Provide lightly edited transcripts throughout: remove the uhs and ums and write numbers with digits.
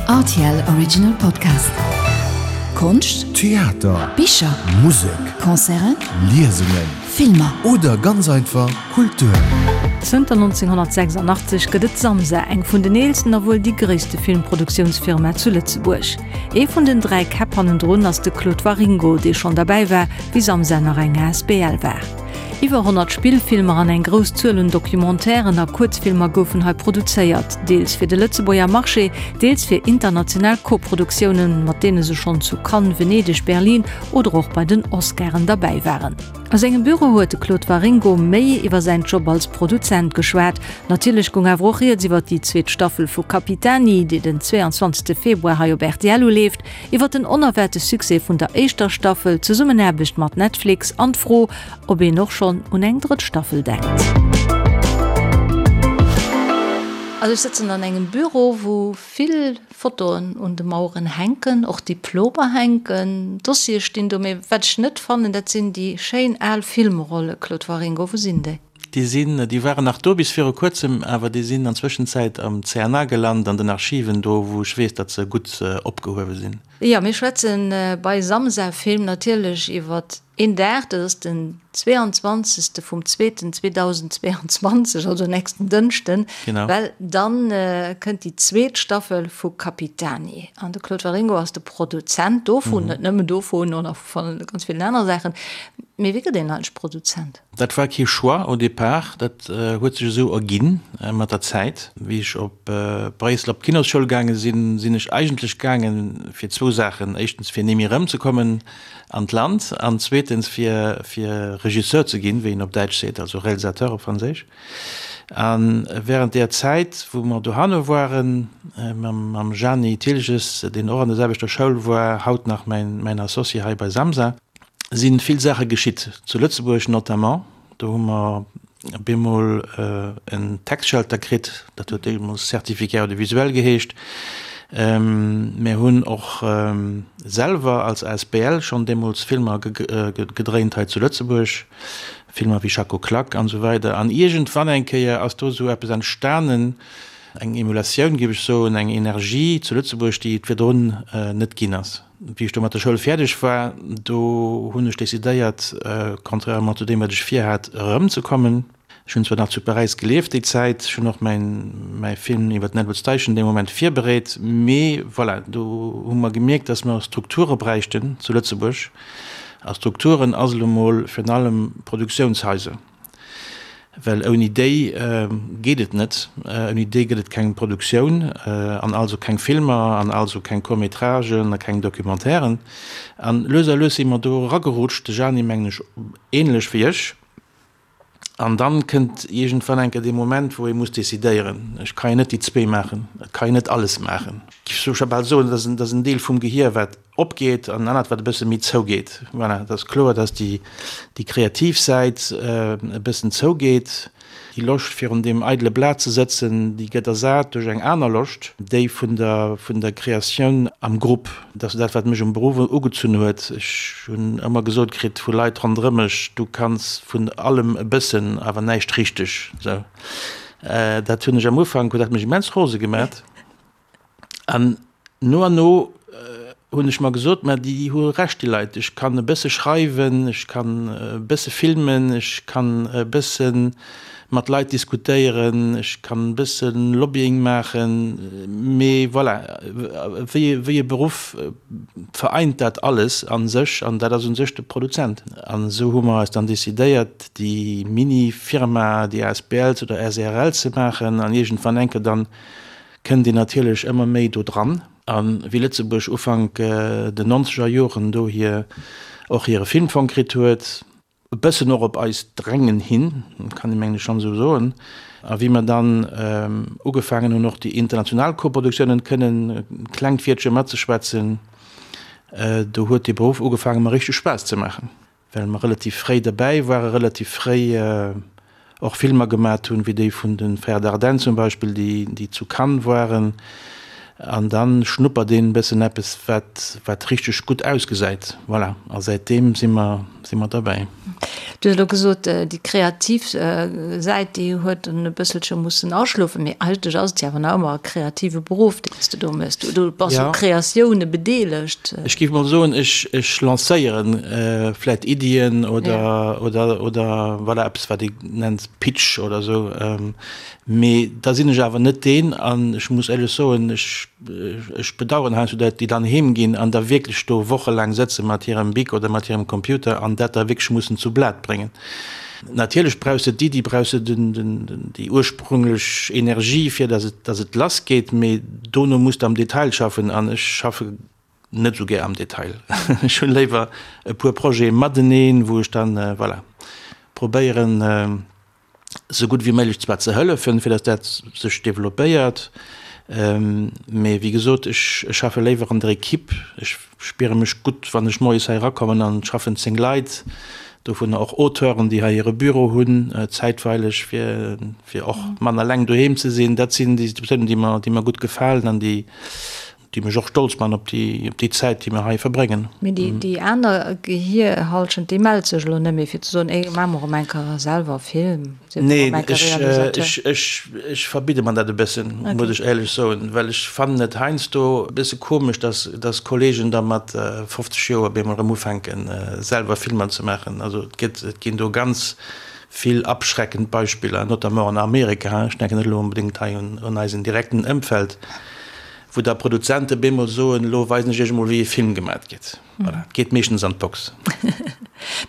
Rtl Original Podcast. Konscht, Theater, Bicher, Musek, Concerten, Liesungen, Filmer. Oder ganz einfach Kultur. Zënter 1986 gëtt et Samsa, eng vun den eelsten a wuel déi gréisste Filmproduktiounsfirma zu Lëtzebuerg. Ee vun den 3 Käpp hannendrun ass de Claude Waringo, dee schonn derbäi war, wéi Samsa nach eng asbl war. Iwwer 100 Spillfilmer an eng grouss Zuel un Documentairen a Kuerzfilmer goufen hei produzéiert, deels fir de Lëtzebuerger Marché, deels fir international Koproduktiounen, mat deene se schonn zu Cannes, Venedeg, Berlin oder och bei den Oscaren derbäi waren. A sengem Büro huet de Claude Waringo méi iwwer säin Job als Produzent geschwat. Natierlech goung awer och rieds iwwer déi zweet Staffel vu Capitani, déi den 22 Februar hei op rtl uleeft, Iwwer den onerwaarte Succès vun der éischter Staffel, d'Zesummenaarbecht mat Netflix an d'Fro, ob een och schonn un eng drëtt Staffel denkt. Also ech sëtzen an engem Büro, wou vill Fotoen un de Maueren hänken, och Diplomer hänken, Dossiere stinn do, mee wat ech net fannen, dat sinn déi schéin al Filmrolle, Claude Waringo, wou sinn déi? Déi sinn, déi waren nach do bis viru kuerzem, awer déi sinn an Zwëschenzäit am CNA gelant, an den Archiven do, wou ech weess, datt se gutt opgehuewe sinn. Jo, mir schwätze bei Samsa Film natierlech iwwer een Dag, dat ass den 22. Vum zweeten 2022, also nächsten Dënschden, well dann kënnt déi zweet Staffel vu Capitani. An de Claude Waringo ass de Produzent dovun, net nëmmen dovun, och nach vu ganz villen anere Saachen. Mee wéi gëtt een eigentlech Produzent? Dat war kee Choix au départ, dat huet sech esou erginn mat der Zäit. Wéi ech op Bréissel op d'Kinosschoul gaange sinn, sinn ech eigentlech gaange fir zwou Saachen, éischtens fir némme erëmzekommen an d'Land an zweetens fir fir Regisseur ze ginn, wéi een op Däitsch seet, also Réalisateur op Franséisch. A während där Zäit, wou mer dohanne waren, mam Jani Thilges, deen och an der selwechter Schoul war, haut nach mäin Associé hei bei Samsa, si vill Saache geschitt, zu Lëtzebuerg notamment. Do hu mer bemol en Tax-Shelter kritt, dat huet deemools Certificat audiovisuel geheescht. Mir hunn och selwer als asbl schonn deemools Filmer gedréint hei zu Lëtzebuerg, Filmer wéi Schacko Klak an esou weider. An iergendwann eng Kéier ass do esou eppes entstanen, eng Emulatioun, géif ech soen, eng Energie zu Lëtzebuerg, déi et virdrun net ginn ass. Wéi ech do mat der Schoul fäerdeg war, do hunn ech decidéiert, contrairement zu deem, wat ech virhat, erëmzekommen. Ech hunn zwar nach zu Paräis gelieft déi Zäit, ech hunn och mäin, mäi Film iwwer den Edward Steichen dee Moment virbereet, mee voilà, do hu mer gemierkt, dass mer Strukture bräichten zu Lëtzebuerg. A Strukturen ass elo mol virun allem Produktiounshaiser. Well ouni déi geet et net. Ouni déi gëtt et keng Produktioun an also keng Filmer an also keng Court-métragen a keng Documentairen. An lues a lues si mer do eragerutscht, de Jani mengen ech ähnlech wéi ech. An dann kënnt iergendwann eng Kéier dee Moment, wou ee muss decidéieren, ech ka jo net déi zwee maachen, et ka een net alles maachen. Ech géif scho bal soen, dat ass en Deel vum Gehier, wat opgeet an en anert wat e bësse méi zougeet. Voilà, et ass kloer, datt déi, déi kreativ Säit e bëssen zougeet. Déi Loscht virun deem eidele Blat ze sëtzen, déi gëtt ersat duerch eng aner Loscht, déi vun der, vun der Kreatioun am Grupp. Dat ass dat, wat mech um Beruff ugezunn huet. Ech hunn ëmmer gesot kritt vu Leit ronderëm mech, du kanns vun allem e bëssen, awer näischt richteg. Sou, dat hunn ech am Ufank, huet dat mech immens rose gemat. An no an no hunn ech mer gesot, mä déi hu Recht, déi Leit. Ech kann e bësse schreiwen, ech kann e bësse filmen, ech kann e bësse mat Leit diskutéieren, ech kann e bësse Lobbying maachen, mee voilà, wéi wéi e Beruff vereint dat alles a sech an dat ass u sech de Produzent. An esou hu mer eis dann decidéiert, déi Mini-Firma, déi asbl oder SRL ze maachen an iergendwann enke dann kënnt een natierlech ëmmer méi do dran. A wéi Lëtzebuerg Ufank den nonzeger Joren do hir och hire Filmfong kritt huet, e bëssen och op eist Drängen hin, kann ee mengen ech schonn esou soen, a wéi mer dann ugefaangen hunn och déi international Koproduktiounen kënnen e klengt Wiertche matzeschwätzen, do huet dee Beruff ugefaangen mer richteg Spaass ze maachen. Well mer relativ fréi derbäi waren, relativ fréi och Filmer gemat hunn, wéi déi vun de Frères Dardenne zum Beispill, déi zu Cannes waren. An dann schnuppert een e bëssen eppes, wat, wat richteg gutt ausgesäit. Voilà, a säitdeem si mer, si mer derbäi. Du hues elo gesot, déi kreativ Säit, déi huet en e bësselche mussen aschlofen, mee eigentlech ass et jo awer nach ëmmer e kreative Beruff, deen s de do méchs. Du bass u Kreatioune bedeelegt. Ech géif mol soen, ech, ech lancéieren vläicht Iddien oder, oder, oder voilà, eppes, wat ee nennt Pitch oder esou. Mee da sinn ech awer net deen, an ech muss éierlech soen, ech, ech bedauern heiansdo dat déi dann heem ginn an da wierklech do wochelaang sëtze mat hirem Bic oder mat hirem Computer an dat da wierklech mussen zu Blat bréngen. Natierlech brauchs de d'Iddi, brauchs de den, den, den, déi ursprünglech Energie, fir datt et, datt et lassgeet, mee dono muss de am Detail schaffen an ech schaffe net esou gär am Detail. Ech hunn léiwer e puer Projete mateneen, wou ech dann, voilà, probéieren, sou gutt wéi méiglech zwar ze hëllefen, fir datt dat sech developpéiert, mee wéi gesot, ech schaffe léiwer an der Equipe. Ech spiere mech gutt, wann ech moies hei erakommen an et schaffen 10 Leit, dovunner och Auteuren, déi hei hire Büro hunn zäitweileg, fir fir och manner eleng doheem ze sinn. Dat sinn déi Situatiounen, déi mer déi mer gutt gefalen an déi déi mech och stolz man op déi, op déi Zäit, déi mer hei verbréngen. Mee déi, déi aner Gehierhallschent, déi mellt sech elo net méi, fir ze soen, Ey, maache mer erëm eng Kéier selwer e Film, si mer erëm eng Kéier Realisateur. Nee, ech, ech, ech verbidde mer dat e bëssen, muss ech éierlech soen, well ech fannen et heiansdo e bësse komesch, dass, dass Kollegen da mat 50 Joer op eemol erëm ufänken, selwer Filmer ze maachen. Also et gëtt, et ginn do ganz vill abschreckend Beispiller, notamment an Amerika, ech denken net elo onbedéngt hei un, un eisen direkten Ëmfeld, Wou da Produzente bemol soen, elo weisen ech iech emol wéi e Film gemat gëtt. Voilà, et geet meeschtens an d'Box.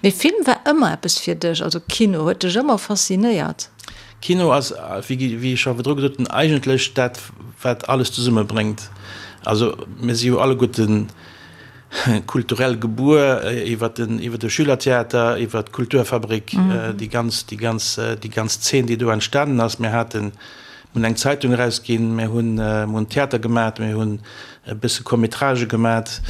Mee Film war ëmmer eppes fir dech, also Kino huet dech ëmmer faszinéiert? Kino ass, wéi ech scho virdru gesot hunn, eigentlech dat wat alles zesummebréngt. Also mir si jo alleguerten kulturell gebuer iwwer den, iwwer de Schülertheater, iwwer d'Kulturfabrik, déi ganz, déi ganz, déi ganz Zeen déi do entstanen ass. Mir haten Mir hunn eng Zeitung erausginn, mir hunn, mir hunn Theater gemat, mir hunn e bësse Court-métragë gemat.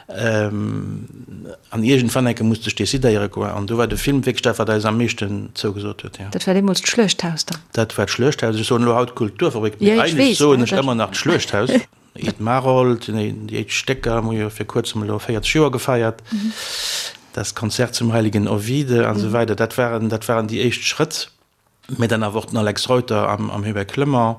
An iergendwann enke musst ech decidéiere quoi. An do war de Film wierklech dat, wat eis am meeschten zougesot huet, jo. Dat war deemools d'Schluechthaus dann? Dat war d'Schluechthaus. Ech soen elo haut Kulturfabrik, mee eigentlech soen ech ëmmer nach d'Schluechthaus. Ed Maroldt, déi éischt Stécker hu jo fir kuerzem elo 40 Joer gefeiert, Das Konzert zum heiligen Ovide an esou weider. Dat waren, dat waren déi éischt Schrëtt. Mä dann awer och den Alex Reuter am Hubert Clement.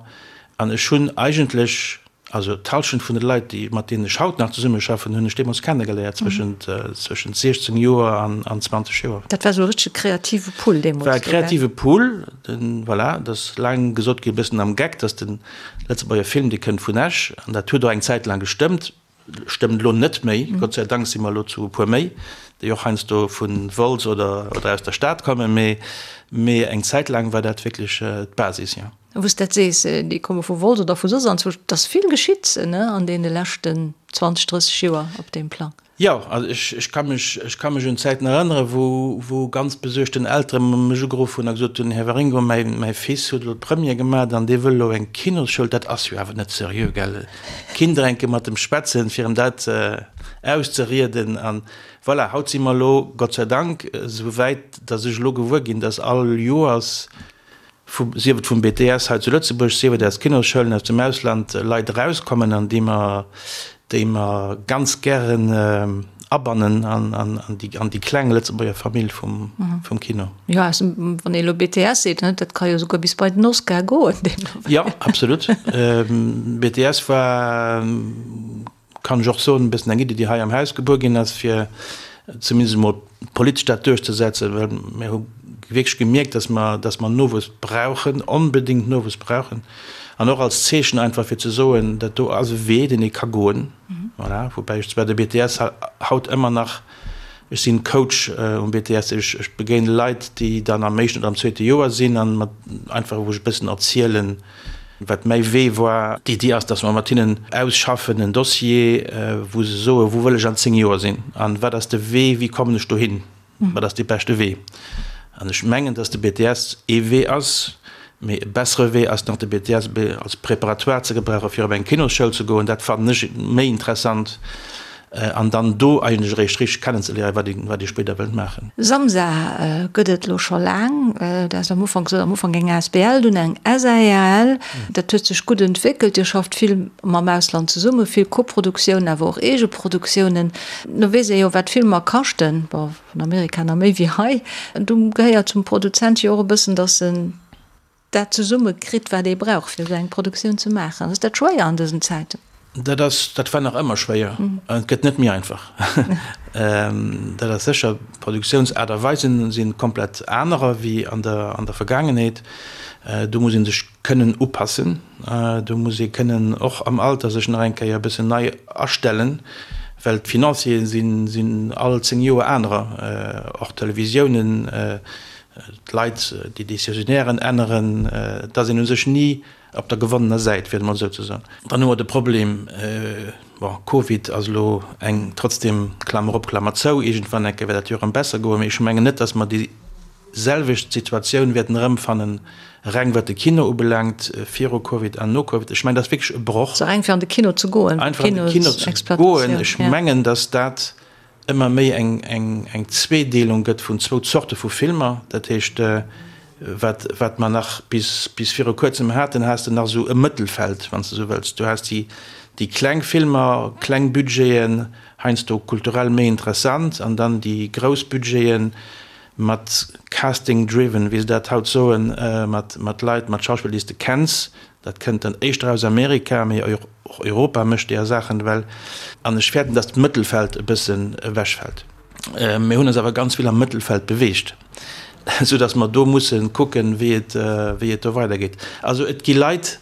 An ech hunn eigentlech, also d'Hallschent vun de Leit, déi, mat deenen ech haut nach zesummeschaffen, hunn ech deemools kennegeléiert, zwëschent, zwëschent 16 Joer an 20 Joer. Dat war esou e richtege kreative Pool deemools. War e kreative Pool, den, voilà, et ass laang gesot ginn, e bëssen am Geck, datt de Lëtzebuerger Film, dee kënnt vun Esch. An dat huet och eng Zäit laang gestëmmt. Stëmmt elo net méi, Gott sei Dank si mer elo zu e puer méi, déi och heiansdo vu Wolz oder oder aus der Stad kommen, mee mee eng Zäit laang war dat wierklech d'Basis, jo. A wou s dat sees, déi komme vu Wolz oder vu soss anzwousch, et ass vill geschitt, ne, an deene leschten 20, 30 Joer op deem Plang. Jo, also ech, ech ka mech, ech ka mech un Zäiten erënneren, wou, wou ganz besuergten Eltere mech ugeruff hunn a gesot hunn, Här Waringo, mäi, mäi Fils huet elo d'Première gemat an dee wëll elo eng Kinosschoul, dat ass jo awer net seriö, gell? Kind enke mat em schwätzen, fir em dat auszerieden an voilà, haut si mer elo, Gott sei Dank, esou wäit, datt ech elo gewuer ginn, datt all Joers, vu, sief et vum BTS hei zu Lëtzebuerg, sief et aus Kinosschoulen aus dem Ausland, Leit erauskommen an déi mer, déi mer ganz gären abannen an, an, an déi, an déi kleng Lëtzebuerger Famill vum, vum Kino. Jo, aus dem, wann ee elo BTS seet, ne, dat ka jo souguer bis bei den Oscar goen deemno. Jo, absolut. BTS war. kann ech och soen, e bëssen eng Iddi, déi hei am Haus gebuer ginn ass, fir zumindest emol politesch dat duerchzesetzen, well mir hu wierklech gemierkt, dass mer, dass mer Nowuess brauchen, onbedéngt Nowuess brauchen, an och als Zeechen einfach fir ze soen, dat do ass e Wee, deen ee ka goen. Voilà, woubäi ech zwar de BTS haut ëmmer nach, ech sinn Coach um BTS, ech, ech begéine Leit, déi dann am éischten oder am zweete Joer sinn an mat einfach, wou ech e bëssen erzielen, Wat mäi Wee war, d'Iddi ass, datt mer mat hinnen ausschaffen en Dossier, wou se soen, wou wëll ech an 10 Joer sinn an wat ass de Wee, wéi kommen ech dohin, wat ass dee beschte Wee. An ech mengen, datt de BTS ee Wee ass, mee e bessere Wee ass nach de BTS als Préparatoire ze gebrauchen, fir op eng Kinosschoul ze goen. Dat fannen ech méi interessant. An dann do eigentlech eréischt richteg kennenzeléieren, wat ee, wat ee spéider wëllt maachen. Samsa gëtt et elo scho laang. Du has am Ufank gesot, am Ufank eng asbl, dunn eng SARL. Dat huet sech gutt entwéckelt. Dir schafft vill mam Ausland zesummen, vill Koproduktiounen, awer och Eegeproduktiounen. No weess ee jo, wat Filmer kaschten, bon, an Amerika nach méi wéi hei. Do gehéiert zum Produzent jo och e bëssen, datt en dat zesumme kritt, wat ee brauch, fir esou eng Produktioun ze maachen. Ass dat schwéier an dësen Zäiten? Dat ass, dat war nach ëmmer schwéier an et gëtt net méi einfach. Dat ass sécher. D'Produktiounsaart a Weisen si komplett anerer wéi an der, an der Vergaangenheet. Do muss ee sech kënnen upassen. Do muss ee kënnen och am Alter sech nach eng Kéier e bëssen nei astellen, well d'Financiere sinn, sinn all 10 Joer anerer. Och d'Televisiounen, D'Leit, déi Décisionairen änneren, et ass een u sech ni op der gewonnener Säit, fir et emol esou ze soen. Dann hu mer de Problem, bon, Covid ass elo eng, trotzdem, Klammer op, Klammer zou, iergendwann eng Kéier wäert dat jo erëm besser goen, mee ech mengen net, datt mer déi selwecht Situatioun wäerten erëmfannen, reng wat de Kino ubelaangt, viru Covid an no Covid. Ech mengen, dat ass wierklech e Broch. Also reng fir an de Kino ze goen, Einfach an de Kino ze goen. Ech mengen, datt dat ëmmer méi eng Zweedeelung gëtt vun zwou Zorte vu Filmer. Dat heescht, wat, wat mer nach bis, bis viru Kuerzem haten, has de nach esou e Mëttelfeld, wann s de esou wëlls. Du has déi, déi kleng Filmer, kleng Budgeten, heiansdo kulturell méi interessant, an dann déi grouss Budgeten mat casting driven, wéi se dat haut soen, mat, mat Leit, mat Schauspiller, déi s de kenns, Dat kënnt dann éischter aus Amerika, mee och Europa mécht deeër Saachen ewell. An ech fäerten, datt d'Mëttelfeld e bëssen ewechfält. Mir hunn eis awer ganz vill am Mëttelfeld beweegt, esou datt mer do musse kucken, wéi et, wéi et do weidergeet. Also et gi Leit,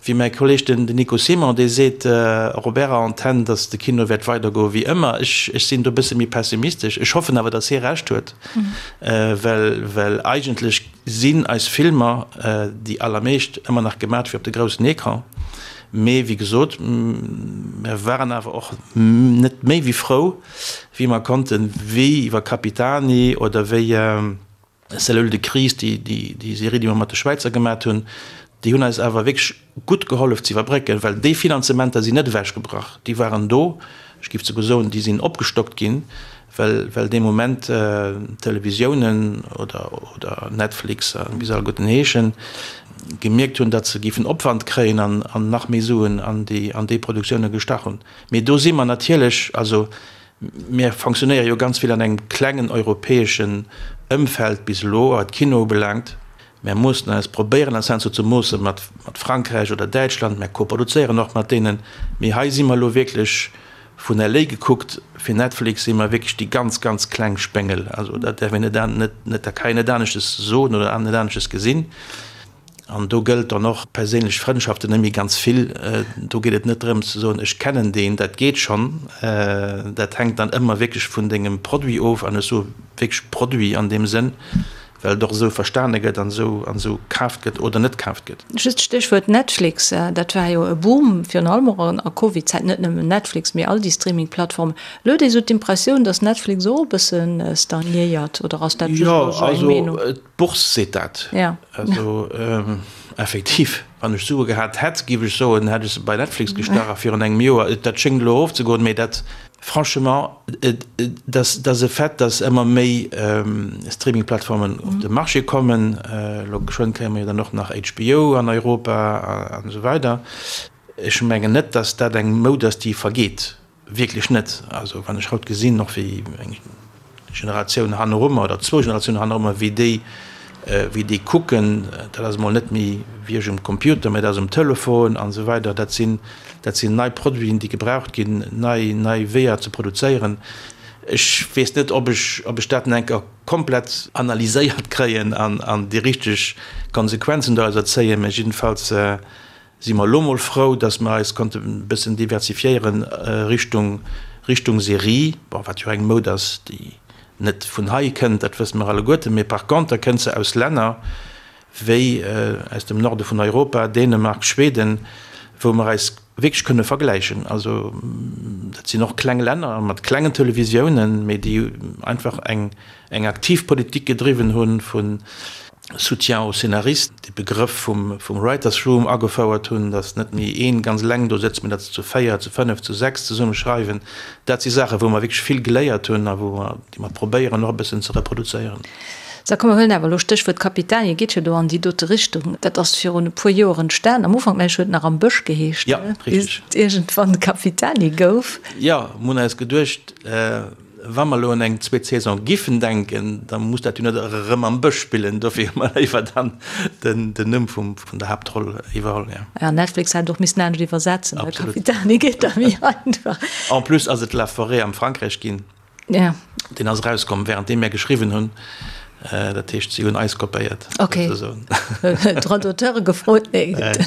wéi mäi Kolleeg, den Nico Simon, dee seet och op Ärer Antenn, datt de Kino wäert weidergoe wéi ëmmer. Ech, ech sinn do e bësse méi pessimistesch. Ech hoffen awer, datt hie Recht huet, well, well eigentlech, Sinn eis Filmer, déi allermeescht, ëmmer nach gemat fir op de groussen Ecran. Mee wéi gesot, mer waren awer och net méi wéi frou, wéi mer konnten, wéi iwwer Capitani oder wéi Cellule de crise, déi Serie, déi mer mat de Schwäizer gemat hunn, déi hunn eis awer wierklech gutt gehollef ze iwwerbrécken, well déi Finanzementer sinn net ewechgebrach, déi waren do, ech géif souguer soen, déi sinn opgestockt ginn, well well dee Moment d'Televisiounen oder oder Netflix a wéi se alleguerten heeschen, gemierkt hunn, datt se géifen Opwand kréien an an nach méi Suen an déi an déi Produktioune gestach hunn. Mee do si mer natierlech, also mir fonctionnéiere jo ganz vill an engem klengen europäeschen Ëmfeld bis elo, wat Kino ubelaangt. Mär moossen eis, probéieren eis heiansdo ze moosse mat Frankräich oder Däitschland, mär koproduzéieren och mat deenen, mee hei si mer elo wierklech, vun LA gekuckt, fir Netflix si mer wierklech déi ganz, ganz kleng Spéngel. Also dat däerf een net, net, dat ka een net aneschtes soen oder net aneschtes gesinn. An do gëllt dann och, perséinlech Frëndschaften net méi ganz vill. Do geet et net drëms ze soen, ech kennen deen, dat geet schonn. Dat hänkt dann ëmmer wierklech vun dengem Produit of, an ech soe wierklech Produit an deem Sënn, well et och esou verstane gëtt an esou an esou kaaft gëtt oder net kaaft gëtt. Just Stéchwuert Netflix, dat war jo e Boom, virun allem och an a Covid-Zäiten, net nëmmen Netflix, mee all déi Streaming-Plattformen. Elo huet ee sou d'Impressioun, datt Netflix och e bësse stagnéiert, oder ass dat just elo sou eng Meenung? Jo, also d'Bourse seet dat. Ja. Also effektiv, wann ech Sue gehat hätt, géif ech soen, hätt ech se bei Netflix gestach a virun engem Joer. Dat schéngt elo erofzegoen, mee dat. Franchement, et ass e Fait, dass ëmmer méi Streaming-Plattformen op de Marché kommen. Elo geschwënn kréie mer jo dann och nach HBO an Europa an esou weider. Ech mengen net, dass dat eng Moud ass, déi vergeet. Wierklech net. Also wann ech haut gesinn, och wéi eng Generatioun hannerummer oder zwou Generatiounen hannerummer, wéi déi, wéi déi kucken, dat ass emol net méi wéi ech um Computer, mä dat ass um Telefon an esou weider. Dat sinn, dat sinn nei Produiten, déi gebraucht ginn, nei, nei Weeër ze produzéieren. Ech weess net, ob ech, ob ech dat nach eng Kéier komplett analyséiert kréien an, an déi richteg Konsequenzen dorauser zéien, mä jiddefalls Si mer elo mol frou, dass mer eis konnte e bëssen diversifiéieren Richtung, Richtung Serie, bon, wat jo eng Moud ass, déi net vun hei kënnt, dat wësse mer alleguerten, mee par conter kënnt se aus Länner wéi aus dem Norde vun Europa, Dänemark, Schweden, wou mer eis wierklech kënne vergläichen. Also dat sinn och kleng Länner mat klengen Televisiounen, mee déi einfach eng, eng aktiv Politik gedriwwen hunn vun. Soutien aux scénaristes, de Begrëff vum vum Writers' Room agefouert hunn, datt net méi een ganz eleng do sëtzt, mee datt se zu 4, zu 5, zu 6 zesumme schreiwen. Dat si Saachen, wou mer wierklech vill geléiert hunn a wou mer, déi mer probéieren och e bëssen ze reproduzéieren. Sou, komm mer huelen awer elo Stéchwuert Capitani, et geet jo do an déi dote Richtung. Dat ass virun e puer Joer entstan. Am Ufank, mengen ech, huet et nach Am Bësch geheescht, Ja, bis et iergendwann Capitani gouf. Jo, mir hunn eis geduecht, Wa mer elo un eng zweet Saison giffen denken, da muss dat jo net erëm am Bësch spillen. Dofir hu mer léiwer dann den Numm vum, vun der Haaptroll iwwerholl, jo. Ja, Netflix hätt och missen anescht iwwersetzen, ne? Capitani geet da méi einfach. En plus ass et La Forêt am Frankräich ginn. Ja. Deen ass erauskomm, wärenddeem mär geschriwwen hunn. Dat heescht, si hunn eis kopéiert. Ok. Droit d'auteure gefrot? Nee, gutt.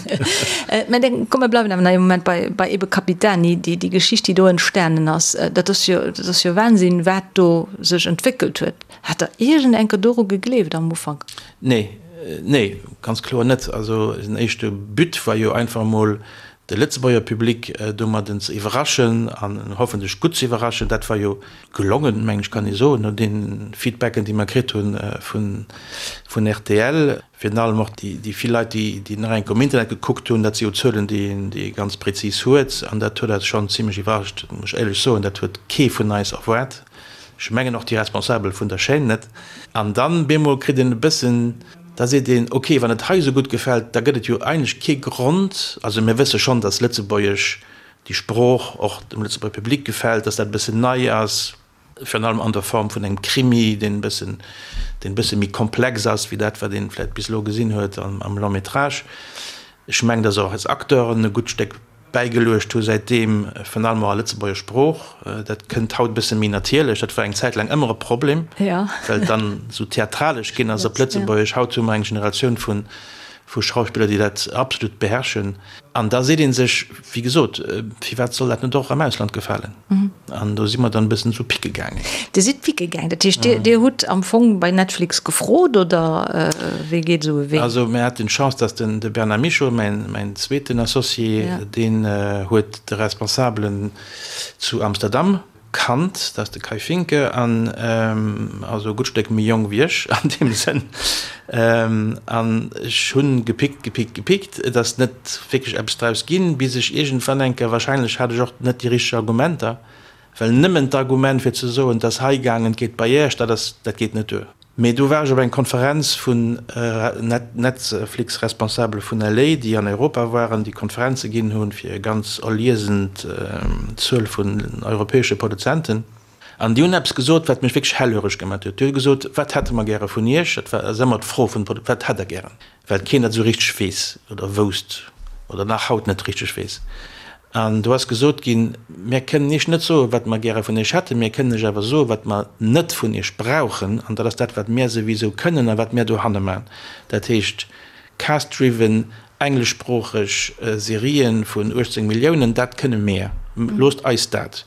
Mä dann, komm, mer bleiwen awer nach ee Moment bei, bei ebe Capitani, déi, déi Geschicht, déi do entstanen ass. Dat ass jo, dat ass jo Wahnsinn, wat do sech entwéckelt huet. Hat Der iergend eng Kéier doru gegleeft am Ufank? Nee, nee, ganz kloer net. Also den éischte But war jo einfach emol, de Lëtzebuerger Public domadden ze iwwerraschen an hoffentlech gutt ze iwwerraschen. Dat war jo gelongen, mengen ech kann ee soen, no deene Feedbacken, déi mer kritt hu vun rtl, virun allem och déi vill Leit, déi nach eng Kéier um Internet gekuckt hunn. Dat si jo Zuelen, déi ee ganz prezis huet an dat huet eis schonn zimlech iwwerrascht, muss ech éierlech soen. Dat huet kee vun eis erwaart, ech mengen och déi Responsabel vun der Chaîne net. An dann bemol kritt een e bëssen, da seet een, ok, wann et hei esou gutt gefält, da gëtt et jo eigentlech kee Grond, also mir wësse schonn, datt Lëtzebuergesch déi Sprooch och dem Lëtzebuerger Public gefält, dass dat e bëssen nei ass, virun allem an der Form vun engem Krimi, deen e bëssen, deen e bësse méi komplex ass wéi dat, wat ee vläicht bis elo gesinn huet am Long métrage. Ech mengen, dass och eis Acteuren e gutt Stéck bäigeluecht hu säitdeem, virun allem och a Lëtzebuerger Sprooch. Dat kënnt haut e bësse méi natierlech. Dat war eng Zäit laang ëmmer e Problem, well et dann esou theatralesch ginn ass op Lëtzebuergesch. Haut hu mer eng Generatioun vu vu Schauspiller, déi dat absolut beherrschen. An da seet ee sech, wéi gesot, firwat soll dat net och am Ausland gefalen? An do si mer dann e bëssen esou picke gaangen. Dir sidd picke gaangen, dat heescht, Dir, Dir hutt am Fong bei Netflix gefrot, oder wéi geet esou e Wee? Also mir haten d'Chance, datt den, de Bernard Michaux, mäin, mäin zweeten Associé, deen huet de Responsabelen zu Amsterdam Kannt, dat ass de Kai Finke, an also e gutt Stéck méi jonk wéi ech an deem Sënn. An ech hunn gepickt, gepickt, gepickt, et ass net wierklech eppes draus ginn, bis ech iergendwann eng Kéier, wahrscheinlech hat ech och net déi richteg Argumenter, well nëmmen d'Argument fir ze soen, et ass hei gaangen, et geet bei Iech, dat ass, dat geet net duer. Mee do war ech op eng Konferenz vun Netflix-Responsabele vun LA, déi an Europa waren, déi Konferenze ginn hunn fir e ganz erliesend Zuel vun europäesche Produzenten. An déi hunn eppes gesot, wat mech wierklech hellhöreg gemaat huet. Déi hu gesot, Wat hätte mer gäre vun Iech? Dat war ass ëmmer d'Fro vun de Produzenten, Wat hätt Der gären? Well keen dat esou richteg weess oder wousst oder nach haut net richteg weess. An do ass gesot ginn, Mir kënnen Iech net soen, wat mer gäre vun Iech hätten, mir kënnen Iech awer soen, wat mer net vun Iech brauchen. An dat ass dat, wat mir souwisou kënnen a wat mir dohanne maachen. Dat heescht, cast-driven, engleschsproocheg Serien vun 18 Milliounen, dat kënne mir. Loosst eis dat.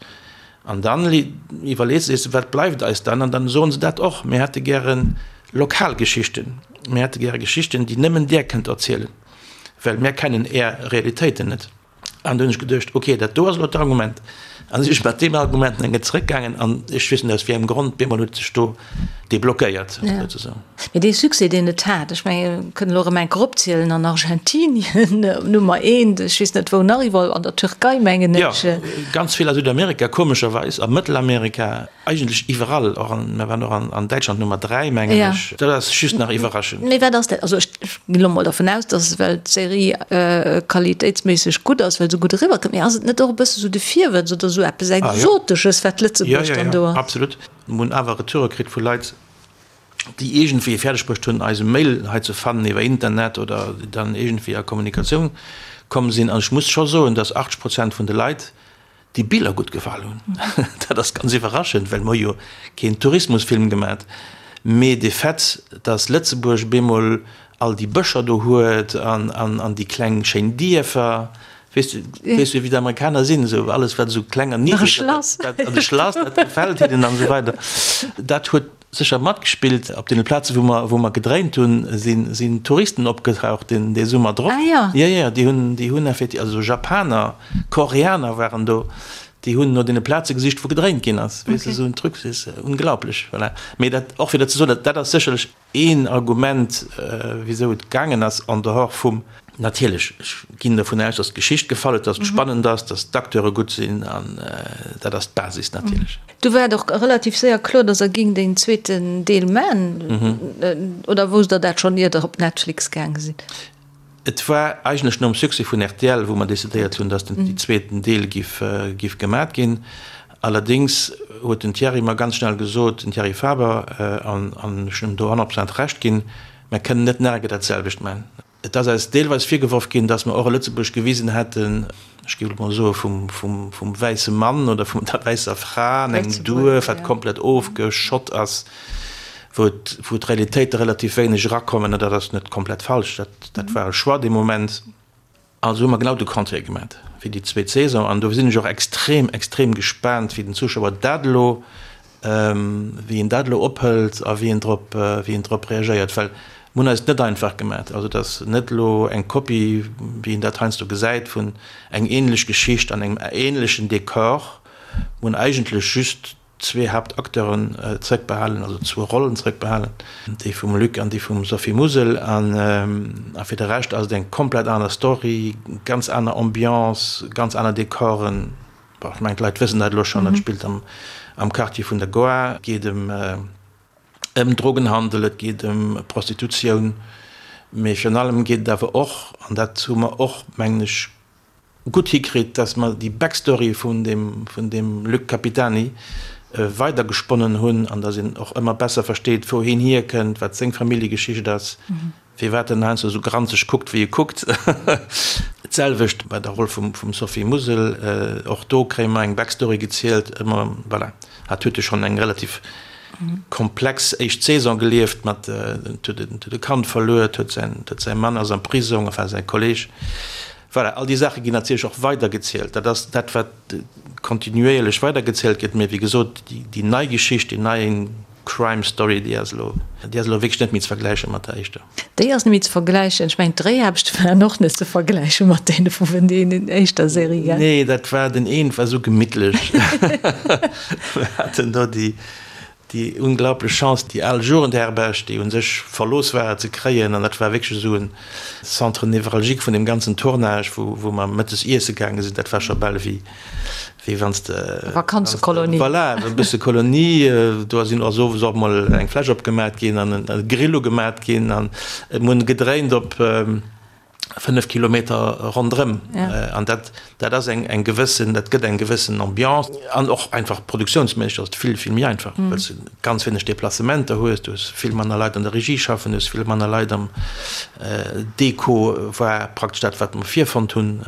An dann iwwerlees de, wat bleift eis dann? An dann soen se dat och, Mir hätte gäre lokal Geschichten, mir hätte gäre Geschichten, déi nëmmen där kënnt erzielen, well mir kennen är Realitéiten net. An du hunn ech geduecht, okay, dat do ass elo d'Argument. An da sinn ech mat deem Argument eng Kéier zeréckgaangen an ech weess net aus wéi engem Grond, bemol huet sech do deblockéiert, souzesoen. Mee dee Succès, deen et hat, ech menge mir kënnen elo erëm eng Kéier opzielen, an Argentinien op Nummer eent, ech weess net wou nach iwwerall, an der Türkei mengen ech. Jo, ganz vill a Südamerika, komescherweis, a Mëttelamerika, eigentlech iwwerall, och an, mir waren och an, an Däitschland Nummer 3, mengen ech. Dat ass just nach iwwerraschend. Mee wat ass dat? Also ech ginn elo mol dervun aus, dass well d'Serie qualitéitsméisseg gutt ass, well se gutt eriwwerkënnt. Mee ass et net och e bësse sou de Virwëtz oder sou eppes Exotesches, wat Lëtzebuerg dann do ass? Jo, jo, jo, absolut. Mir hunn awer Retoure kritt vu Leit, déi iergendwéi et fäerdeg bruecht hunn, eise Mail hei ze fannen iwwer Internet oder déi dann iergendwéi a Kommunikatioun komm sinn. An ech muss scho soen, dass 80 Prozent vun de Leit déi Biller gutt gefall hunn. Dat ass ganz iwwerraschend, well mer hu jo keen Tourismusfilm gemat. Mee de Fait, dass Lëtzebuerg bemol all déi Bëscher do huet an, an, an déi kleng schéin Dierfer, weess de, weess du wéi d'Amerikaner sinn, esou alles wat esou kleng an niddreg ass, dat, dat, an de Schlass, dat gefält hinnen an esou weider. Dat huet sécher matgespillt. Op deene Plaze wou mer, wou mer gedréint hunn, sinn, sinn Touristen opgetaucht deen, dee Summer drop. Ah jo. Jo, jo, déi hunn, déi hunn effektiv, also Japaner, Koreaner waren do. Déi hunn no deene Plaze gesicht, wou gedréint ginn ass. Weess de, esou en Truc, dat ass unglaublech. Voilà. Mee dat, och fir dat ze soen, dat, dat ass sécherlech een Argument, wisou et gaangen ass, en dehors vum, natierlech, ech ginn dovun aus, dass d'Geschicht gefall huet, dass et spannend ass, dass d'Acteure gutt sinn, an dat ass d'Basis natierlech. Du war et och relativ séier kloer, dass Der géingt een zweeten Deel man, oder wousst Der dat schonn, ier Der op Netflix gaange sidd? Et war eigentlech nom Succès vun rtl, wou mer decidéiert hunn, dass den zweeten Deel giff giff gemat ginn. Allerdéngs huet den Thierry mer ganz schnell gesot, den Thierry Faber, an an ech hunn em do 100 Prozent Recht ginn, mer kënnen net nach eng Kéier dat selwecht man. Et ass eis deelweis virgeworf ginn, dass mer och e Lëtzebuerg gewisen hätten, ech géif elo mol soe vum vum vum wäisse Mann oder vun der wäisser Fra an engem Duerf, wat komplett ofgeschott ass. wou wou d'Realitéite relativ wéineg erakommen, an dat ass net komplett falsch, dat dat war e Choix dee Moment. Also hu mer genau de Contraire gemat fir déi zweet Saison, an do sinn ech och extrem, extrem gespaant, wéi den Zuschauer dat elo, wéi en dat elo ophëlt a wéi en drop, wéi en drop reagéiert, well mer hunn eis et net einfach gemat. Also et ass net elo eng Kopie, wéi een dat heiansdo gesäit, vun eng ähnlech Geschicht an engem ähnlechen Dekor. Mer hunn eigentlech just zwee Haaptacteuren zréckbehalen, also zwou Rollen zréckbehalen, déi vum Luc an déi vum Sophie Musel. A fir de Rescht ass et eng komplett aner Story, ganz aner Ambiance, ganz aner Dekoren. Bon, ech mengen, d'Leit wëssen dat elo schonn, et spillt am Quartier vun der Goar, et geet ëm ëm Drogenhandel, et geet ëm Prostitutioun, mee virun allem geet et awer och, an dat hu mer och, mengen ech, gutt hikritt, dass mer déi Backstory vun deem, vun deem Luc Capitani weidergesponnen hunn an dass een och ëmmer besser versteet, wou hien hierkënnt, wat seng Familljegeschicht ass, firwat en heiansdo esou granzeg kuckt, wéi e kuckt. D'selwecht bei der Roll vum, vum Sophie Musel, och do kréie mer eng Backstory gezielt, ëmmer, voilà, hat huet jo schonn eng relativ komplex éischt Saison gelieft mat, huet e Kand verluer, huet säin, huet säi Mann ass am Prisong, enfin säi Kolleg. Voilà, all déi Saache ginn natierlech och weidergezielt. Dat ass dat, wat kontinuéierlech weidergezielt gëtt. Mee wéi gesot, déi nei Geschicht, déi nei Crime Story, déi ass elo, déi ass elo wierklech net méi ze vergläiche mat der éischter. Déi ass net méi ze vergläichen. Ech mengen, d'Dréiaarbechte waren och net ze vergläiche mat deene vun deenen éischter Serie, gell? Nee, dat war, den een war esou gemittlech. Mir haten do déi, Déi unglaublech Chance, déi al Jugendherberg, déi un sech verlooss war, ze kréien. An dat war wierklech esou en Centre névralgique vun deem ganzen Tournage, wou, wou mer mëttes iesse gaange sinn. Dat war scho bal ewéi, wéi wann s de. Vakanzekolonie. Voilà, e bësse Kolonie. Do sinn och owes och mol eng Fläsch opgemat ginn an e Grill ugemat ginn an et hunn gedréint op. 5 Kilometer ronderëm an dat dat ass eng eng gewëssen, dat gëtt eng gewëssen Ambiance an och einfach produktiounsméisseg ass et vill vill méi einfach, well s de ganz wéineg Deplacementer hues, du hues vill manner Leit an der Regie schaffen, du hues vill manner Leit am Deko war praktesch dat wat mer virfonnt hunn,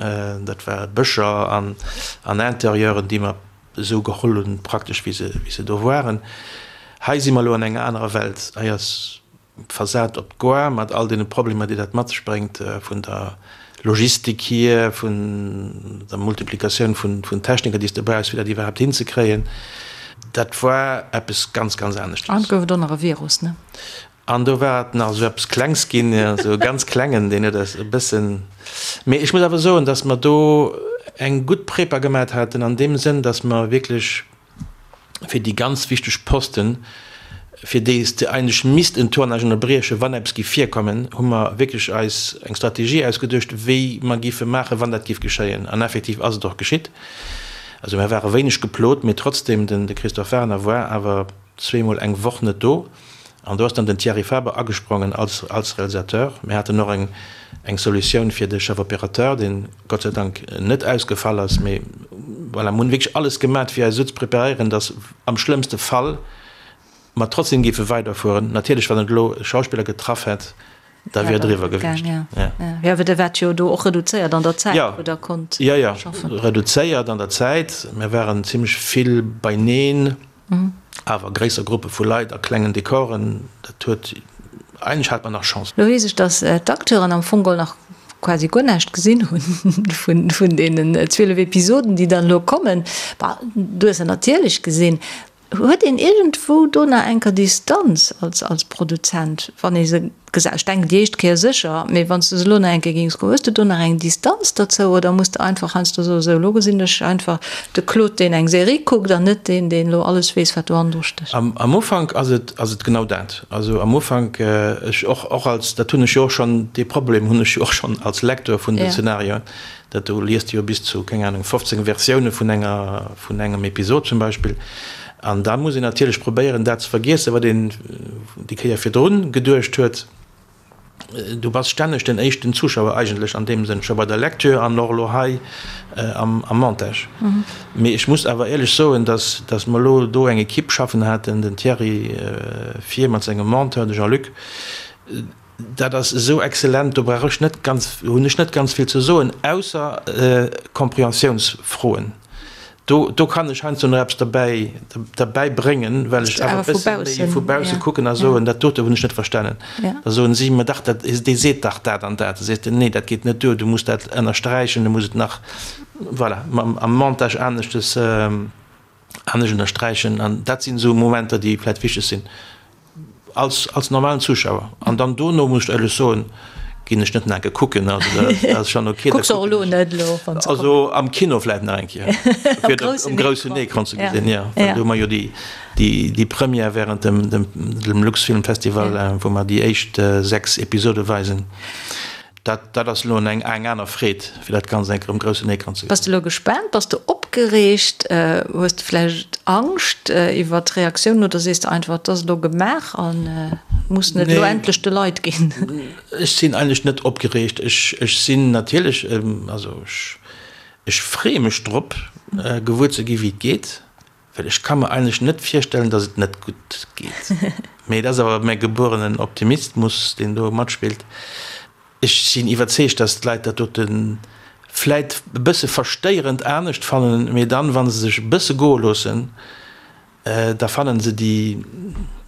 dat war Bëscher an an Interieuren déi mer esou geholl hunn praktesch wéi se wéi se do waren. Hei si mer elo an enger anerer Welt, hei ass Versat op d'Goar, mat all deene Problemer, déi dat mat sech bréngt, vun der Logistik hier, vun der Multiplikatioun vun Techniker, déi s de brauchs, fir dat iwwerhaapt hinzekréien. Dat war eppes ganz, ganz aneschtes. An et gouf et och nach e Virus, ne? An do war et nach esou eppes Klengs ginn, esou e ganz klengen, deen huet eis e bëssen. Mee ech muss awer soen, datt mer do eng gutt Prepa gemat haten an deem Sënn, datt mer wierklech, fir déi ganz wichteg Posten, fir déi s de eigentlech misst en Tournage ënnerbriechen, wann eppes géif virkommen, hu mer wierklech eis eng Strategie ausgeduecht, wéi mer géife maachen, wann dat géif geschéien. An effektiv ass et och geschitt. Also mer ware wéineg geplot, mee trotzdem, den de Christophe Werner war awer zweemol eng Woch net do. An do ass dann den Thierry Faber agesprongen als als Realisateur. Mir haten och eng eng Solutioun fir de Chef opérateur, deen Gott sei Dank net ausgefall ass. Mee voilà, mir hunn wierklech alles gemat, fir eis esou ze preparéieren, datt am schlëmmste Fall mer trotzdem géife weiderfueren. Natierlech, wann et elo e Schauspiller getraff hätt, da wier et eriwwer gewiescht. Ja, ja, well Der waart jo do och reduzéiert an der Zäit, wou Der konnt schaffen. Jo, jo, reduzéiert an der Zäit. Mir waren zimmlech vill beineen. Awer gréisser Gruppe vu Leit a klengen Dekoren, dat huet, eigentlech hat mer nach Chance. Lo weess ech, dass d'Acteuren am Fong geholl nach quasi guer näischt gesinn hunn vun deenen 12 Episoden, déi dann elo kommen. Bah, du hues se natierlech gesinn. Huet een iergendwou do nach enker Distanz als als Produzent, wann ee se gesäit? Ech denken déi éischt Kéier sécher, mee wann s de se elo nach eng Kéier géings kucken, hues de do nach eng Distanz derzou oder muss de einfach heiansdo soen, sou elo gesinn ech einfach de Claude, deen eng Serie kuckt an net deen, deen elo alles weess, wat do hannendru stécht? Am Ufank ass et ass et genau dat. Also am Ufank, ech och och als, dat hunn ech jo och schonn, dee Problem hunn ech jo och schonn als Lecteur vun den Szenarioen, Dat do liest de jo bis zu, keng Ahnung, 15 Versioune vun enger, vun engem Episod zum Beispill. An da muss een natierlech probéieren, dat ze vergiessen, wat een déi Kéier virdrun geduecht huet. Du bass stänneg den éischten Zuschauer eigentlech an deem Sënn, scho bei der Lecture an och elo hei am Montage. Mee ech muss awer éierlech soen, dass, dass mer elo do eng Equipe schaffen haten, den Thierry vir mat sengem Monteur, de Jean-Luc, Dat ass esou exzellent, do brauch ech net ganz, hunn ech net ganz vill ze soen, ausser Compréhensiounsfroen. Do, do kann ech heiansdo nach eppes derbäi, derbäi bréngen, well ech awer e bësse méi vu bausse kucken a soen, dat dote hunn ech net verstanen. Da soen si, ma dach, dat, dee seet dach dat an dat. Da sees de, nee, dat geet net duer, du muss dat ënnersträichen, du muss et nach, voilà, am Montage aneschtes, anescht ënnersträichen. An dat sinn esou Momenter, déi vläicht wichteg sinn. Als, als normalen Zuschauer. An dann dono, muss ech éierlech soen, ginn ech net nach eng Kéier kucken. Also dat ass schon okay. Kucks och elo net elo, wann se kommen. Also am Kino vläicht nach eng Kéier. Fir dat um groussen Ecran ze gesinn, jo. Well do hu mer jo déi, déi, déi Première während dem, dem, dem Luxfilmfestival, wou mer déi éischt 6 Episode weisen. Dat, dat ass elo eng, eng aner Freed, fir dat Ganzt eng Kéier um groussen Ecran ze gesinn. Bass de elo gespaant? Bass de opgereegt? Hues de vläicht Angscht iwwer d'Reaktiounen oder sees de einfach, et ass elo gemaach a mussen et elo endlech de Leit ginn? Ech sinn eigentlech net opgereegt. Ech, ech sinn natierlech, also ech, ech freeë mech drop, gewuer ze gi wéi et geet. Well ech ka mer eigentlech net virstellen, datt et net gutt geet. Mee et ass awer mäi gebuerenen Optimistmus, deen do matspillt. Ech sinn iwwerzeegt, datt d'Leit dat dote vläit e bësse verstéierend anescht fannen, mee dann, wa se sech e bësse goe loossen, da fannen se déi,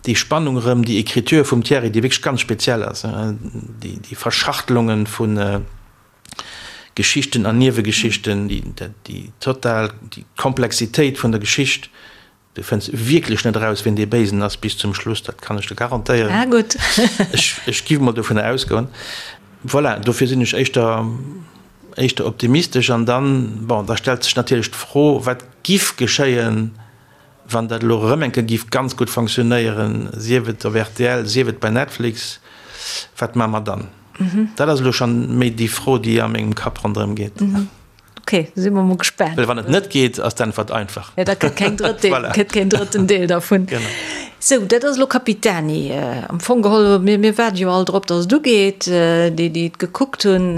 déi Spannung erëm, déi Écriture vum Thierry, déi wierklech ganz speziell ass, déi, déi Verschachtelunge vun. Geschichten an Niewegeschichten, déi total, déi Komplexitéit vun der Geschicht, du fënns wierklech net eraus, wien dee Béisen ass bis zum Schluss, dat kann ech der garantéieren. Ah gutt. Ech, ech giff mol dovunner ausgoen. Voilà, dofir sinn ech éischter, éischter optimistesch. An dann, bon, da stellt sech natierlech d'Fro, wat giff geschéien, Wann dat elo erëm eng Kéier géif ganz gutt fonctionnéieren, sief et op rtl, sief et bei Netflix, wat maache mer dann? Dat ass elo schonn méi déi Fro, déi a mengem Kapp ronderëm geet. Ok, da si mer mol gespaant. Well wann et net geet, ass d'Äntwert einfach. Jo, da kënnt keng drëtt Deel, kënnt keen drëtten Deel dervun. Genau. Sou, dat ass elo Capitani. Am Fong geholl, mir, mir waarde jo all drop, datt et ugeet, déi, déi et gekuckt hunn.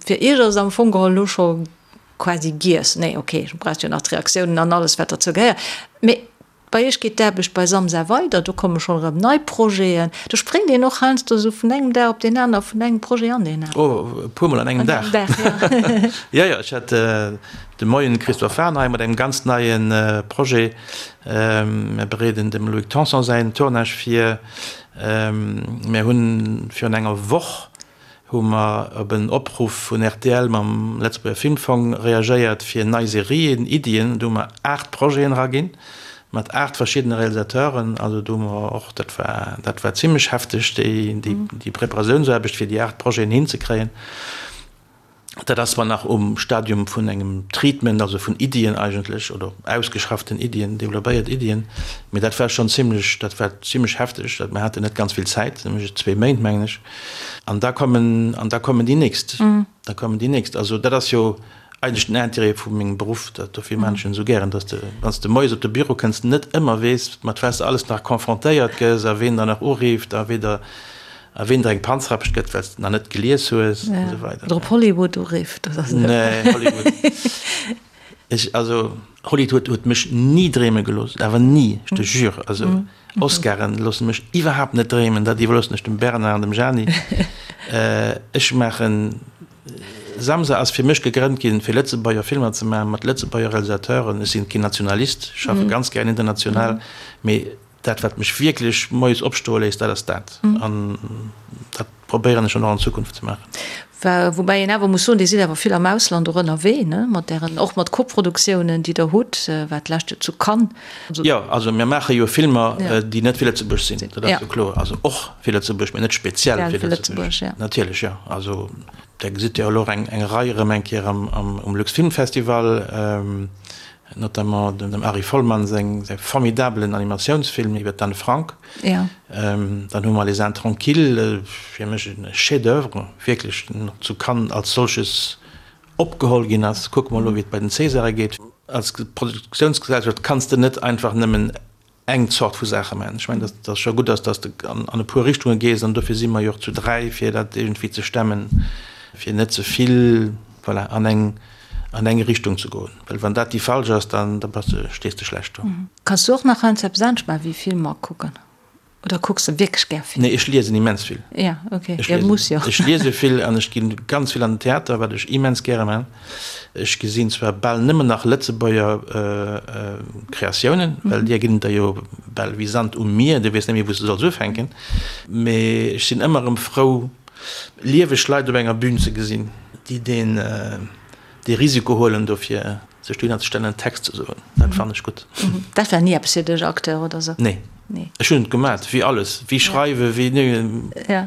Fir Iech ass et am Fong geholl elo scho quasi giess. Nee, ok, du brauchst jo nach d'Reaktiounen an alles, wat derzou gehéiert. Mee bei iech geet d'Aarbecht bei Samsa weider, do komme schonn erëm nei Projeten. Do spréngt een och heiansdo esou vun engem Dag op deen aner, vun engem Projet an deen aneren. Oh, e puermol an engem Dag. An engem Dag, jo. Jo, jo, ech hat de Moien de Christophe Fahrenheim mat engem ganz neie Projet. Mir bereeden dem Loïc Tanson säin Tournage vir. Mir hunn virun enger Woch hu mer op en Opruff vun rtl mam Lëtzebuerger Filmfong reagéiert fir nei Serien, Iddien. Do hu mer 8 Projeten eraginn, mat 8 verschiddene Realisateuren. Also do hu mer och, dat war, dat war zimlech hefteg, déi, déi Preparatiounsaarbecht fir déi 8 Projeten hinzekréien. Dat ass zwar nach um Stadium vun engem Treatment, also vun Iddien eigentlech, oder ausgeschafften Iddien, developpéiert Iddien, mee dat war schonn zimlech, dat war zimlech hefteg. Dat, mer haten net ganz vill Zäit, nämlech zwee Méint, mengen ech. An da kommen, an da kommen déi nächst, da kommen déi nächst. Also dat ass jo eigentlech den Intérêt vu mengem Beruff, dat dofir maan ech en esou gären, dass de, wann s de moies op de Büro kënns, net ëmmer weess, mat wat s de alles nach confrontéiert gëss a ween der nach urifft a wee der, A ween der eng Panzrapscht gëtt, well s de nach net gelies hues, an esou weider. Oder op Hollywood urifft, dat ass. Nee, Hollywood. Ech, also, Hollywood huet mech ni dreeme gelooss, awer ni, ech te jure. Also, Oscaren loosse mech iwwerhaapt net dreemen, dat iwwerloossen ech dem Bernard an dem Jeanny. Ech maachen, Samsa ass fir mech gegrënnt ginn, fir Lëtzebuerger Filmer ze maachen, mat Lëtzebuerger Realisateuren. Ech sinn keen Nationalist, ech schaffe ganz gären international, mee Dat, wat mech wierklech moies opstoe léisst, dat ass dat. An dat. probéieren ech dann och an Zukunft ze maachen. Woubäi een awer muss soen, Dir sidd awer vill am Ausland och ënnerwee, ne, mat Ären, och mat Koproduktiounen, déi Der hutt, war d'lescht Joer zu Cannes. Jo, also mir maache jo Filmer, déi net fir Lëtzebuerg sinn, dat ass jo kloer. Also och fir Lëtzebuerg, mee net speziell fir Lëtzebuerg. Natierlech, jo. Also Der gesitt jo elo och eng Rei erëm eng Kéier um Luxfilmfestival. Notamment dem Ari Folman seng säi formidabelen Animatiounsfilm iwwer d'Anne Frank. Dann hu mer Les Intranquilles, fir mech e Chef-d'oeuvre, wierklech zu Cannes als solches opgeholl ginn ass. Kucke mer elo, wéi et bei den Césare geet. Als Produktiounsgesellschaft kanns de net einfach nëmmen eng Zort vu Saache maachen. Ech mengen, datt et scho gutt ass, datt s de an e puer Richtunge gees, an dofir si mer jo och zu 3, fir dat iergendwéi ze stemmen, fir net ze vill, voilà, an eng, an eng Richtung ze goen. Well wann dat déi falsch ass, dann, da bass de, stees de schlecht do. Kanns du och nach heiansdo eppes anescht maachen wéi Filmer kucken? Oder kucks de wierklech gär Filmer? Nee, ech liesen immens vill. Ja, okay. Ech liesen, muss jo. Ech liese vill an ech ginn ganz vill an den Theater, wat ech immens gäre man. Ech gesinn zwar bal nëmmen nach Lëtzebuerger Kreatiounen, well deer ginn et der jo bal wéi Sand um Mier, du weess net méi wou s de solls ufänken. Mee ech sinn ëmmer erëm frou, lieweg Leit op enger Bühn ze gesinn, déi deen dee Risiko huelen dofir sech dohinner ze stellen en Text ze soen. Dat fannen ech gutt. Dat war ni eppes fir dech, Acteur oder sou? Nee. Nee. Ech hunn et gemat, wéi alles, wéi schreiwen, wéi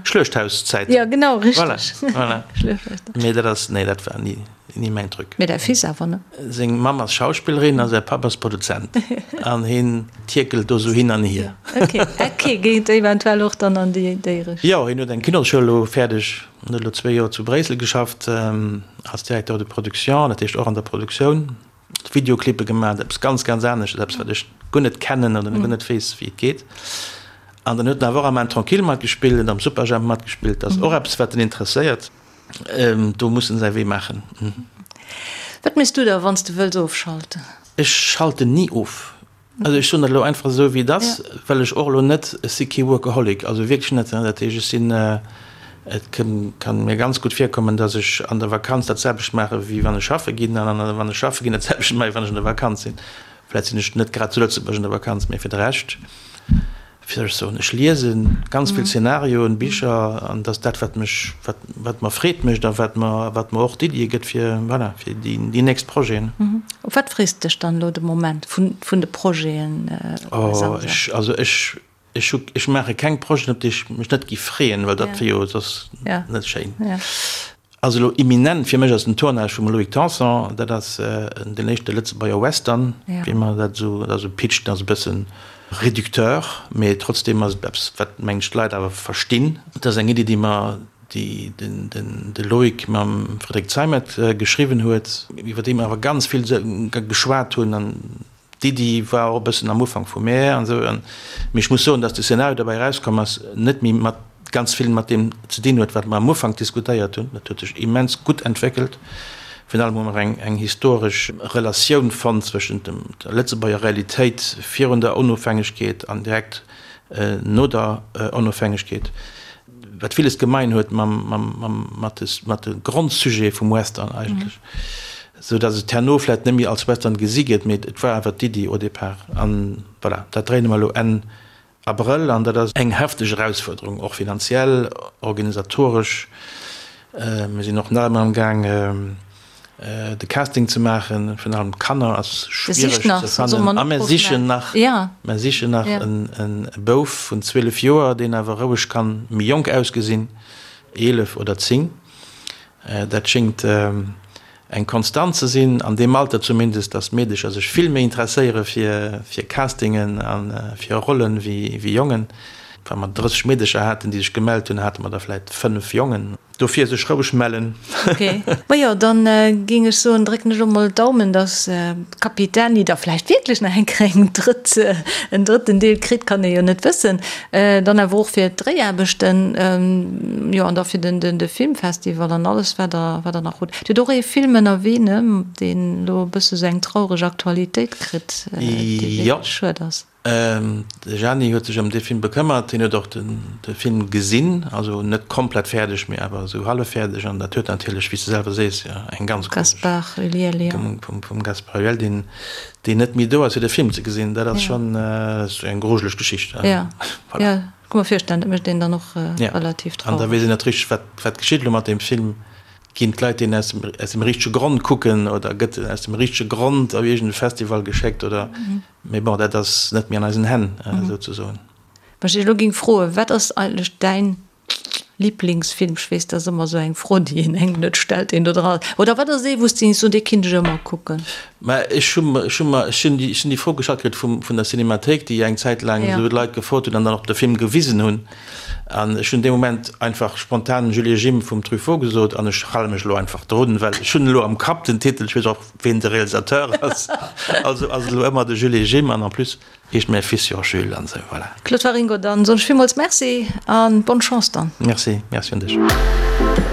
Schluechthauszäiten. Jo, genau, richteg. Voilà, voilà. Schluechthauszäiten. Mee dat ass, nee, dat war ni, ni mäin Truc. Mee däi Fils awer, ne? Seng Mamm ass Schauspillerin a säi Papp ass Produzent an hien tierkelt do sou hin an hier. Ok, ok, geet eventuell och dann an déi Richtung. Jo, hien huet eng Kinosschoul elo fäerdeg. En huet elo zwéi Joer zu Bréissel geschafft als Directeur de production, dat heescht och an der Produktioun, Videoclippe gemaach, eppes ganz, ganz anescht, eppes wat ech guer net kennen oder guer net weess, wéi et geet. An dann huet en awer och am Intranquille matgespillt, en huet am Superjhemp matgespillt, dat ass och eppes wat en interesséiert. Do muss en säi Wee maachen. Wat méchs du da wann s de wëlls ofschalten? Ech schalten ni of. Also ech soen dat elo einfach esou wéi et ass, well ech och elo net, ech si kee Workaholic, also wierklech net. Dat heescht, ech sinn, et ka mir ganz gutt virkommen, datt ech an der Vakanz dat selwecht maache wéi wann ech schaffe ginn an wann ech schaffe ginn dat selwecht maache wéi wann ech an der Vakanz sinn. Vläicht sinn ech net grad zu Lëtzebuerg an der Vakanz, mee fir de Rescht. Wéi soll ech soen, ech liese ganz vill Szenarioen, Bicher, an dat ass dat, wat mech, wat, wat mer Freed mécht a wat mer, wat mer och d'Iddie gëtt fir, voilà, fir déi, déi nächst Projeten. Op wat frees de dech dann elo de Moment vun, vun de Projeten bei Samsa? Oh, ech, also ech, ech hu, ech maache keng Projeten, op déi ech mech net géif freeën, well dat wier jo soss net schéin. Also elo imminent fir mech ass den Tournage vum Loïc Tanson, dat ass den éischte Lëtzebuerger Western, wéi mer dat esou, dat ass e Pitch, deen ass e bëssen réducteur, mee trotzdeem ass et eppes, wat mengen ech d'Leit awer verstinn. Dat ass eng Iddi, déi mer, déi den de Loïc mam Frédéric Zeimet geschriwwen huet, iwwer déi mer awer ganz vill geschwat hunn an D'Iddi war och e bëssen am Ufank vu mär an esou. Mee ech muss soen, datt de Szenario derbäi erauskomm ass, net méi mat ganz vill mat deem ze dinn huet, wat mer am Ufank diskutéiert hunn. Dat huet sech immens gutt entwéckelt. Virun allem hu mer eng eng historesch Relatioun fonnt zwëschent dem der Lëtzebuerger Realitéit virun der Onofhängegkeet an direkt no der Onofhängegkeet, wat villes gemein huet mam mam mam mat de mat de Grondsujete vum Western eigentlech. Sou datt et herno vläit net méi als Western gesi gëtt, mee et war awer d'Iddi au départ. An voilà, dat dréine mer elo Enn Abrëll an dat ass eng hefteg Erausfuerderung, och finanziell, organisatoresch. Mir sinn och nach ëmmer am Gaang de Casting ze maachen, virun allem d'Kanner ass schwiereg ze fannen. A mir sichen nach, mir sichen nach e Bouf vun 12 Joer, deen awer roueg kann méi jonk ausgesinn, 11 oder 10. Dat schéngt eng Konstant ze sinn, an deem Alter zumindest, datt d'Meedecher sech vill méi interesséiere fir Castingen a fir Rollen wéi Jongen. Wa mer 30 Meedecher haten, déi sech gemellt hunn, hate mer der vläit 5 Jongen. Dofir sech roueg mellen. Ok, majo dann géing ech soen, drécken ech elo mol d'Daumen, dass Capitani da vläicht wierklech nach eng Kéier eng drëtt, en drëtten Deel kritt, kann ee jo net wëssen. Dann awer och fir d'Dréiaarbechten, jo, an da fir den, de Filmfestival an alles, wat Der, wat Der nach hutt. Dir hutt och ee Film ënnerwee, ne, deen elo e bësse sou eng traureg Aktualitéit kritt, dee wierklech schued ass. De Gianni huet sech ëm dee Film bekëmmert. Hien huet och de Film gesinn, also net komplett fäerdeg, mee awer esou hallef fäerdeg. An dat huet natierlech, wéi s de selwer sees, jo eng ganz komesch. Gaspard Ulliel, jo. Vum Gaspard Ulliel, deen, deen net méi do ass, fir de Film ze gesinn. Dat ass schonn eng grujeleg Geschicht. Jo, jo, ka mer virstellen, dat mécht een dann och relativ traureg. An da weess een net richteg, wat, wat geschitt elo mat deem Film. Ginn d'Leit deen aus dem, aus dem richtege Grond kucken oder gëtt en aus dem richtege Grond op iergend e Festival geschéckt oder. Mee bon, dat ass net méi an eisen Hänn, souzesoen. Wann ech dech elo géing froen, wat ass eigentlech däin Liblingsfilm? Ech weess, dat ass ëmmer esou eng Fro, déi een engem net stellt, deen do dran ass. Oder wat ass ee, wou s de géings soen, dee kinnt ech ëmmer kucken? Mä ech hu mer, ech hu mer, ech hunn déi, ech hunn déi Fro gestallt kritt vum, vun der Cinémathéik, déi eng Zäit laang esou d'Leit gefrot hunn an dann och de Film gewisen hunn. An ech hunn dee Moment einfach spontan Jules et Jim vum Truffaut gesot an ech hale mech elo einfach drun, well ech hunn elo am Kapp den Titel, ech weess och, Ween de Realisateur ass, also ass et elo ëmmer de Jules et Jim an en plus heescht mäi Fils jo och Jules an esou, voilà. Claude Waringo, dann soen ech villmools Merci an bonne Chance dann. Merci, merci un dech.